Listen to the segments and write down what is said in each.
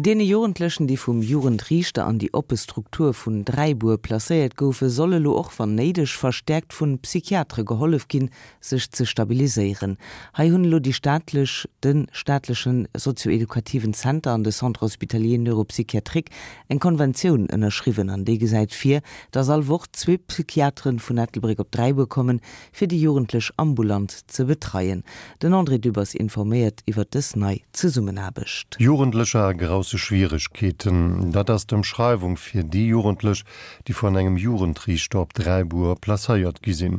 Deene Jugendlechen, déi vum Jugendriichter an déi oppe Struktur vun Dräibuer placéiert goufen, soll elo och wann néideg verstäerkt vun Psychiatere gehollef ginn, sech ze stabiliséieren. Hei hunn elo déi staatlech, de staatlechen sozio-edukativen Zenter an de Centre hospitalier neuropsychiatrique eng Konventioun ënnerschriwwen an déi gesäit vir, dass all Woch zwee Psychiateren vun Ettelbréck op Dräibuer kommen, fir déi Jugendlech ambulant ze betreien. Den André Dübbers informéiert iwwer dës nei Zesummenaarbecht. Jugendlecher a grousse Schwieregkeeten, dat ass d'Ëmschreiwung fir déi Jugendlech, déi vun engem Jugendriichter op Dräibuer placéiert gi sinn.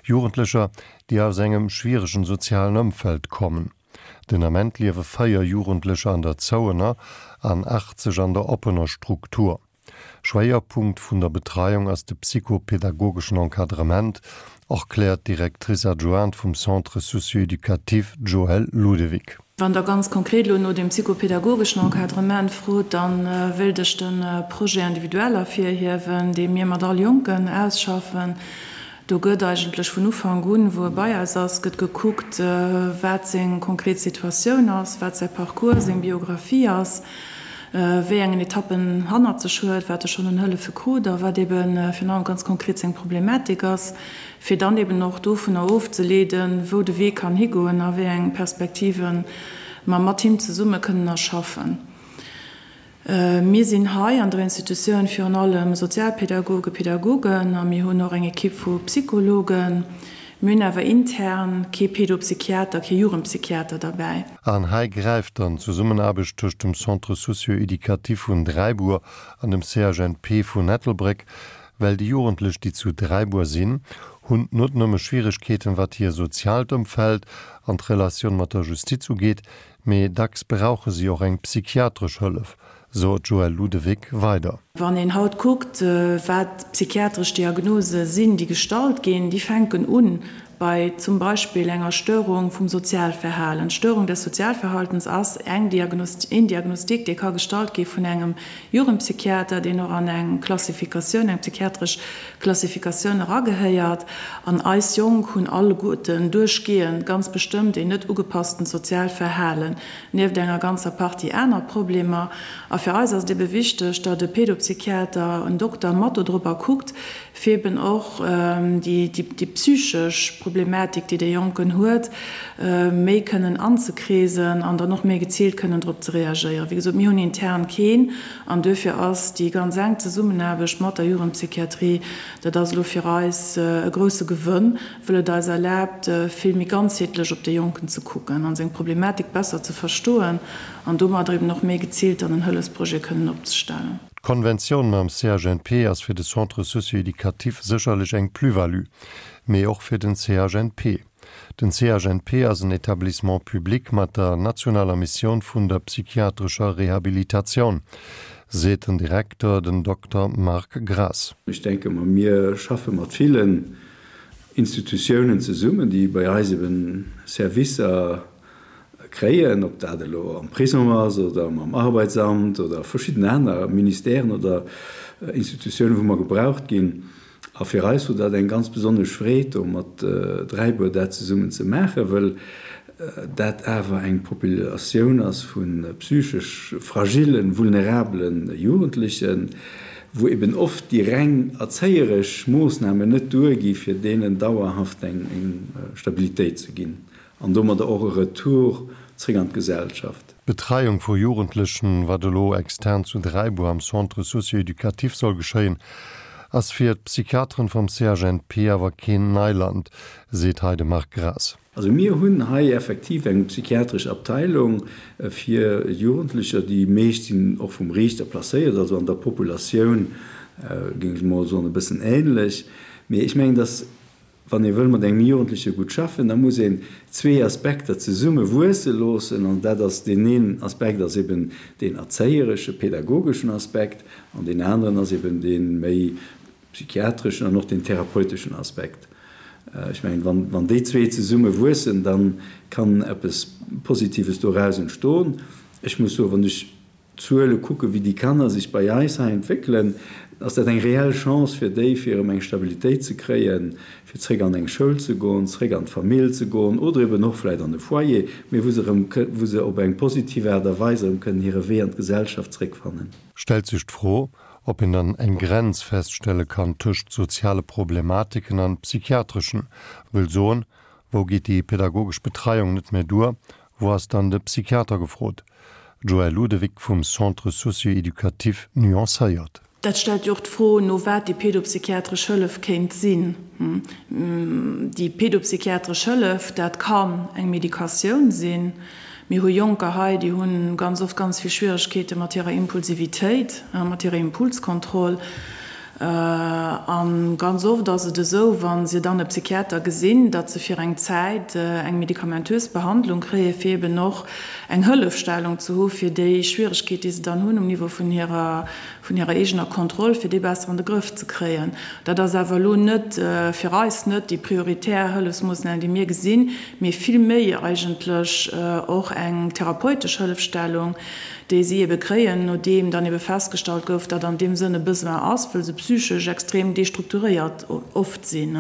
Jugendlecher, déi aus engem schwieregen sozialen Ëmfeld kommen. Den Ament liewe 4 Jugendlecher an der zouener an 80 an der oppener Struktur. Schwéierpunkt vun der Betreiung ass de psychopedagogeschen Encadrement, erkläert d'Directrice adjointe vum Centre socio-éducatif, d'Joëlle Ludewig. Wann Der ganz konkret elo no dem psychopedagogeschen Encadrement frot, da wéilt ech de Projet individuel ervirhiewen, dee mir mat all Jonken ausschaffen. Do gëtt eigentlech vun Ufank un, wou e bei eis ass, gëtt gekuckt, wat seng konkret Situatioun ass, wat säi Parcours, seng Biographie ass, wéi engen Etappen en hannert sech huet, wat e schonn un Hëllefe krut a wat ebe virun allem ganz konkret seng Problematik ass, fir dann eben och dovunner ofzeleeden, wou de Wee kann higoen a wéi eng Perspektive mer mat him zesumme kënnen erschaffen. Mir sinn hei an der Institutioun virun allem Sozialpädagogen, Pädagogen a mir hunn och eng Ekipp vu Psychologen. Mir hunn awer intern kee Pedopsychiater, kee Jugendpsychiater derbäi. An hei gräift dann d'Zesummenaarbecht tëscht dem Centre socio-éducatif vun Dräibuer an dem CHNP vun Ettelbréck, well déi Jugendlech, déi zu Dräibuer sinn, hunn not nëmme Schwieregkeeten, wat hir soziaalt Ëmfeld an d'Relatioun mat der Justiz ugeet, Mee dacks brauche si och eng psychiatresch Hëllef, sot d'Joëlle Ludewig weider. Wann een haut kuckt, wat psychiatresch Diagnose sinn, déi gestallt ginn, déi fänken u bei zum Beispill enger Störung vum Sozialverhalen. D'Störung des Sozialverhaltens ass eng een Diagnostic, dee ka gestallt gi vun engem Jugendpsychiater, deen och an eng Klassifikatioun, eng psychiatresch Klassifikatioun eragehéiert. An eis Jonk hunn alleguerten duerchgehend ganz bestëmmt een net ugepasstent soziaalt Verhalen, nieft enger ganzer Partie aner Problemer. A fir eis ass et ebe wichteg, datt e Pedopsychiater, en Dokter mat dodrobber kuckt, fir eben och déi psychesch Problematik, déi dee Jonken huet, méi kënnen anzekreesen an dann och méi geziilt kënnen drop ze reagéieren. Wéi gesot, mir hunn intern keen an duerfir ass déi ganz enk Zesummenaarbecht mat der Jugendpsychiatrie, dat ass elo fir eis e grousse Gewënn, wëll et eis erlaabt, vill méi ganzheetlech op dee Jonken ze kucken an seng Problematik besser ze verstoen an domadder eben och méi geziilt dann en Hëllefsprojet kënnen opzestellen. D'Konventioun mam CHNP ass fir de Centre socio-éducatif sécherlech eng Plus-value, mee och fir den CHNP. Den CHNP ass en Établissement public mat der nationaler Missioun vun der psychiatrescher Rehabilitatioun, seet den Direkter, den Dokter Marc Graas. Ech denke mer, mir schaffe mat villen Institutiounen zesummen, déi bei eis eben Servicer kréien, ob dat elo am Prisong ass oder mam Arbeitsamt oder verschidden aner Ministèren oder Institutiounen, wou mer gebraucht ginn. A fir eis wor dat eng ganz besonnesch Freed, do mat Dräibuer dat zesummen ze maachen, wëll dat awer eng Populatioun ass vu psychesch fragillen, vulnerabelen Jugendlechen, wou eben oft déi reng erzéieresch Moossnamen net duergi fir deenen dauerhaft eng Stabilitéit ze ginn. An domadder och e Retour zréck an d'Gesellschaft. D'Betreiung vu Jugendlechen, wat elo extern zu Dräibuer am Centre socio-éducatif soll geschéien, ass fir d'Psychiateren vum CHNP awer keen Neiland, seet hei de Marc Graas. Also mir hunn hei effektiv eng psychiatresch Abteilung fir Jugendlecher. Déi meescht sinn och vum Riichter placéiert, also an der Populatioun géing ech mol soen e bëssen ähnlech. Mee ech mengen, dass Wann ee wëll mat engem Jugendleche gutt schaffen, da muss een zwee Aspekter zesumme wuesse loossen. An dat ass, deen een Aspekt ass eben deen erzéieresche, pädagogeschen Aspekt an deen aneren ass eben dee méi psychiatreschen an och deen therapeuteschen Aspekt. Ech mengen, wann, wann déi zwee zesumme wuessen, da kann eppes Positives doraus entstoen. Ech muss soen, wann ech. d'Zuele kucken, wéi déi Kanner sech bei eis hei entwéckelen, ass dat eng reell Chance fir déi, fir erëm eng Stabilitéit ze kréien, fir zréck an eng Schoul ze goen, zréck an d'Famill ze goen oder eben och vläicht an e Foyer, mee wou se erëm, wou se op eng positiv Aart a Weis erëm kënnen hire Wee an d'Gesellschaft zréckfannen. Stellt sech d'Fro, ob een dann eng Grenz feststelle kann tëscht soziale Problematiken an psychiatreschen, wëll soen, wou geet déi pedagogesch Betreiung net méi duer, wou ass dann de Psychiater gefrot? D'Joëlle Ludewig vum Centre socio-éducatif nuancéiert. Dat stellt jo och d'Fro no wat déi pedopsychiatresch Hëllef kéint sinn. Déi pedopsychiatresch Hëllef, dat kann eng Medikatioun sinn. Mir hu Jonker hei, déi hu ganz oft ganz vill Schwieregkeete mat hirer Impulsivitéit, mat hirer Impulskontroll. A ganz oft ass et esou, wa se dann e Psychiater gesinn, datt se fir eng Zäit eng medikamentös Behandlung kréien, fir eben och eng Hëllefstellung ze hu fir déi Schwieregkeet, déi se dann hunn um Niveau vun hirer, vun hirer eegener Kontroll, fir déi besser an de Grëff ze kréien. Dat ass awer elo net, fir eis net déi prioritär Hëllefsmoossnam, déi mir gesinn, mee vill méi eigentlech och eng therapeutesch Hëllefstellung, déi si ebe kréien, nodeem dann ebe festgestallt gouf, datt an deem Sënn e Besoin ass, wëll se psychesch extrem destrukturéiert oft sinn.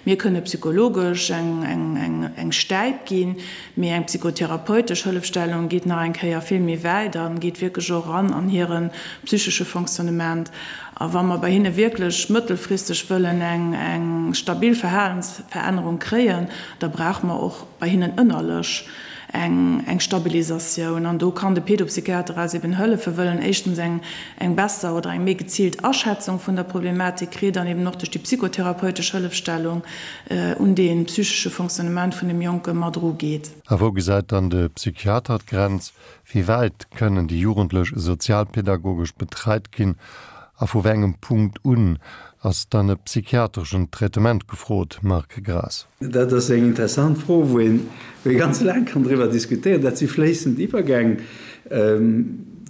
Mir kënne psychologesch eng Stäip ginn, mee eng psychotherapeutesch Hëllefstellung geet nach eng Kéier vill méi wäit a geet wierklech och eran an hire psychesche Fonctionnement. A wa mer bei hinne wierklech mëttelfristeg wëllen eng stabil Verhalensverännerung kréien, da brauche mer och bei hinnen ënnerlech eng Stabilisatioun. An do kann de Pedopsychiater eis eben hëllefen, wëll en éischtens eng besser oder eng méi geziilt Aschätzung vun der Problematik kritt an eben och duerch déi psychotherapeutesch Hëllefstellung un dee psychesche Fonctionnement vun dem Jonke mat erugeet. A wou gesäit dann de Psychiater d'Grenz? Wéi wäit kënnen déi Jugendlech sozialpedagogesch betreit ginn a vu wéi engem Punkt un ass dann e psychiatreschen Traitement gefrot? Marc Graas. Dat ass eng interessant Fro, wou een ganz laang kann driwwer diskutéieren. Dat si fléissend Iwwergäng.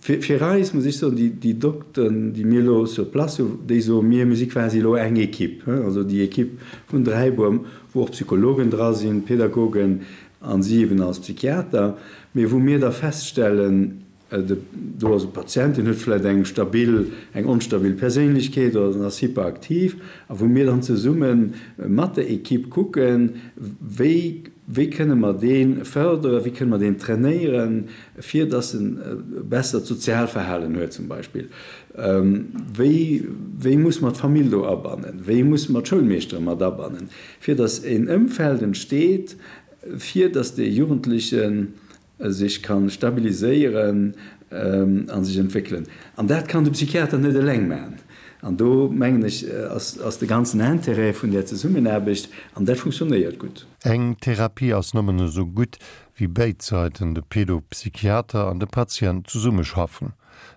Fir eis, muss ech soen, déi Dokteren, déi mir elo sur place hunn, déi soe mir, mir si quasi elo eng Equipe, also déi Equipe vun Dräibuer, wou och Psychologen dra sinn, Pedagogen a si eben als Psychiater, mee wou mir da feststellen, Do ass e Patient, deen huet vläicht eng stabil, eng onstabil Perséinlechkeet oder en ass hyperaktiv, a wou mir dann zesumme mat der Equipe kucken, wéi, wéi kënne mer dee fërderen, wéi kënne mer deen trainéieren, fir dass en e bessert Sozialverhalen huet zum Beispill. Wéi, wéi muss mer d'Famill do abannen, wéi musse mer d'Schoulmeeschtere mat abannen, fir dass en Ëmfeld entsteet, fir dass dee Jugendlechen sech ka stabiliséieren a sech entwéckelen. An dat kann de Psychiater net eleng maachen. An do, mengen ech, ass de ganzen Intérêt vun där Zesummenaarbecht, an dat funktionéiert gutt. Eng Therapie ass nëmmen esou gutt, wéi béid Säiten, de Pedopsychiater an de Patient, zesummeschaffen.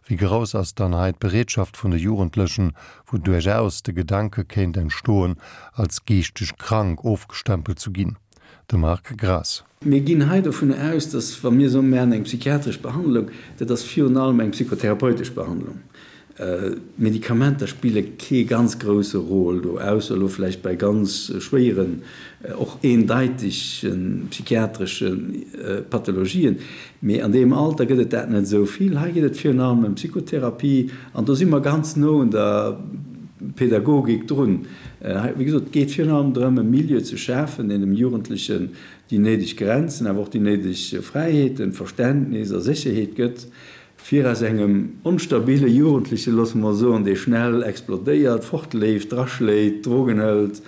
Wéi grouss ass dann hei d'Bereetschaft vun de Jugendlechen, wou duerchaus de Gedanke kéint entstoen, als geeschteg krank ofgestempelt zu ginn? De Marc Graas. Mir ginn hei dovun aus, dass, wa mir soen, mir maachen eng psychiatresch Behandlung, dat ass virun allem eng psychotherapeutesch Behandlung. D'Medikamenter spille kee ganz grousse Rôle do, ausser elo vläicht bei ganz schwéieren, och eendeitege psychiatresche Pathologien. Mee an deem Alter gëtt et dat net esou vill. Hei geet et virun allem ëm Psychotherapie an do si mer ganz no un der Pädagogik drun. Hei, wéi gesot, et geet virun allem drëm, e Milieu ze schafen, deen dem Jugendlechen déi néideg Grenzen, awer och déi néideg Fräiheeten, Verständnis a Sécherheet gëtt, fir aus engem onstabile Jugendlechen, loosse mer soen, dee schnell explodéiert, fortleeft, draschléit, Drogen hëlt,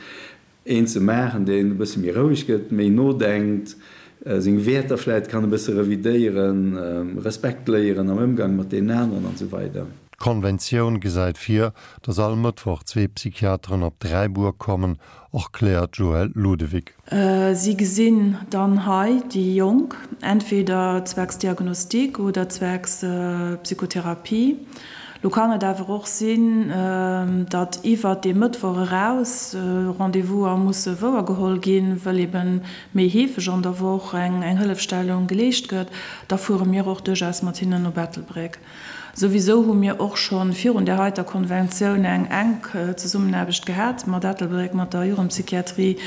een ze maachen, deen e bësse méi roueg gëtt, méi nodenkt, seng Wäerter vläit kann e bësse revidéieren, Respekt léieren am Ëmgang mat deenen aneren an esou weider. D'Konventioun gesäit vir, datt all Mëttwoch zwee Psychiateren op Dräibuer kommen, erkläert d'Joëlle Ludewig. Si gesinn dann hei déi Jonk, entweder zwecks Diagnostik oder zwecks Psychotherapie. Lo kann et awer och sinn, datt iwwert dee Mëttwoch eraus Rendez-vouser musse wouergeholl ginn, wëll ebe méi heefeg an der Woch eng Hëllefstellung geleescht gëtt. Da fuere mir och duerchaus mat hinnen no Ettelbréck. Souwisou hu mir och scho virun där heiter Konventioun eng enk Zesummenaarbecht gehat mat Ettelbréck, mat der Jugendpsychiatrie.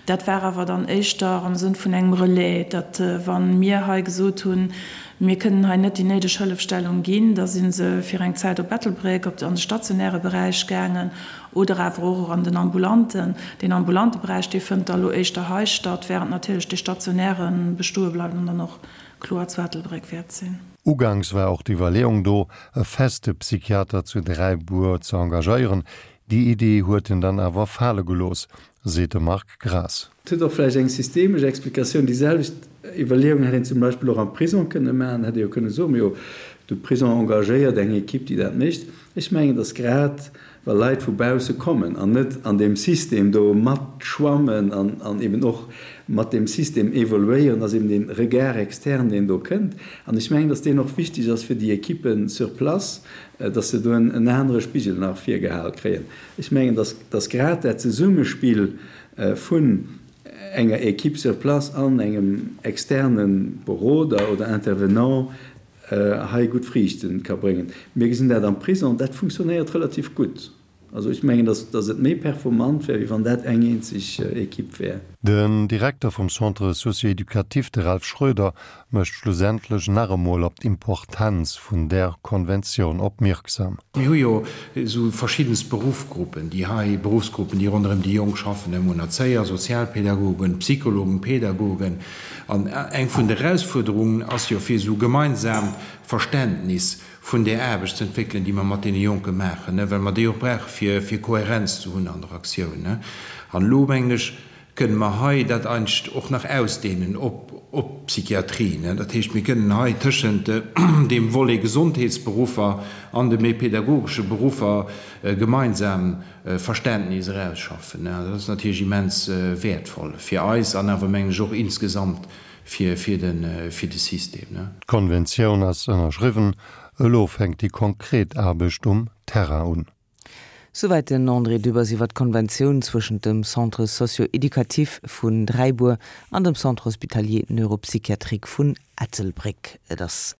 Dat war awer dann éischter am Sënn vun engem Relais, datt wa mir hei gesot hunn, Mir kënnen hei net déi néideg Hëllefstellung ginn. Da si se fir eng Zäit op Ettelbréck op an de stationäre Beräich gaangen oder awer och an den ambulanten. Deen ambulante Beräich, dee fënnt da elo éischter hei statt, während natierlech dee stationäre bestoe bleift an dann och kloer zu Ettelbréck wäert sinn. Uganks war och d'Iwwerleeung do, e feste Psychiater zu Dräibuer ze engagéieren. Déi Idee huet en dann awer fale gelooss, seet de Marc Graas. Et huet och vläicht eng systemesch Explikatioun. Déi selwecht Iwwerleeung hätt een zum Beispill och am Prisong kënne maachen. Hätt ee jo kënne soen, Majo, de Prisong engagéiert eng Ekipp, déi dat mécht. Ech mengen, datt grad wa Leit vu bausse kommen an net an deem System do matschwammen an eben och mat deem System evoluéieren, ass eben dee Regard externe, deen do kënnt. An ech mengen, datt deen och wichteg ass fir déi Ekippen sur place, datt se do en anere Spigel nach virgehal kréien. Ech mengen, datt, datt grad dat Zesummespill vun enger Équipe sur place an engem externe Beroder oder Intervenant hei gutt Friichte ka bréngen. Mir gesinn dat am Prisong, dat funktionéiert relativ gutt. Also ech mengen, datt, datt et méi performant wär, wéi wann dat eng eenzeg Équipe wär. Den Direkter vum Centre socio-éducatif, de Ralph Schroeder, mécht schlussendlech nach emol op d'Importenz vun där Konventioun opmierksam. Mir hu jo esou verschiddenst Beruffgruppen, déi hei, Beruffsgruppen, déi ronderëm déi Jonk schaffen, mir hunn Erzéier, Sozialpädagogen, Psychologen, Pädagogen. An eng vun de Erausfuerderungen ass jo, fir esou e gemeinsaamt Verständnis vun där Aarbecht ze entwéckelen, déi mer mat deene Jonke maachen, well mer déi och brauche fir, fir Kohärenz ze hunn an der Aktioun. An elo, mengen ech, kënne mer hei dat eigentlech och nach ausdehnen op op d'Psychiatrie. Dat heescht, mir kënnen hei tëschent deem Volet Gesondheetsberuffer an de méi pädagogesche Beruffer e gemeinsam Verständnis erausschaffen. Dat ass natierlech immens wäertvoll fir eis an awer, mengen ech, och insgesamt fir fir de fir de System. D'Konventioun ass ënnerschriwwen, elo fänkt déi konkret Aarbecht um Terrain un. Souwäit den André Dübbers iwwer d'Konventioun zwëschent dem Centre socio-éducatif vun Dräibuer an dem Centre hospitalier neuropsychiatrique vun Ettelbréck. Et ass.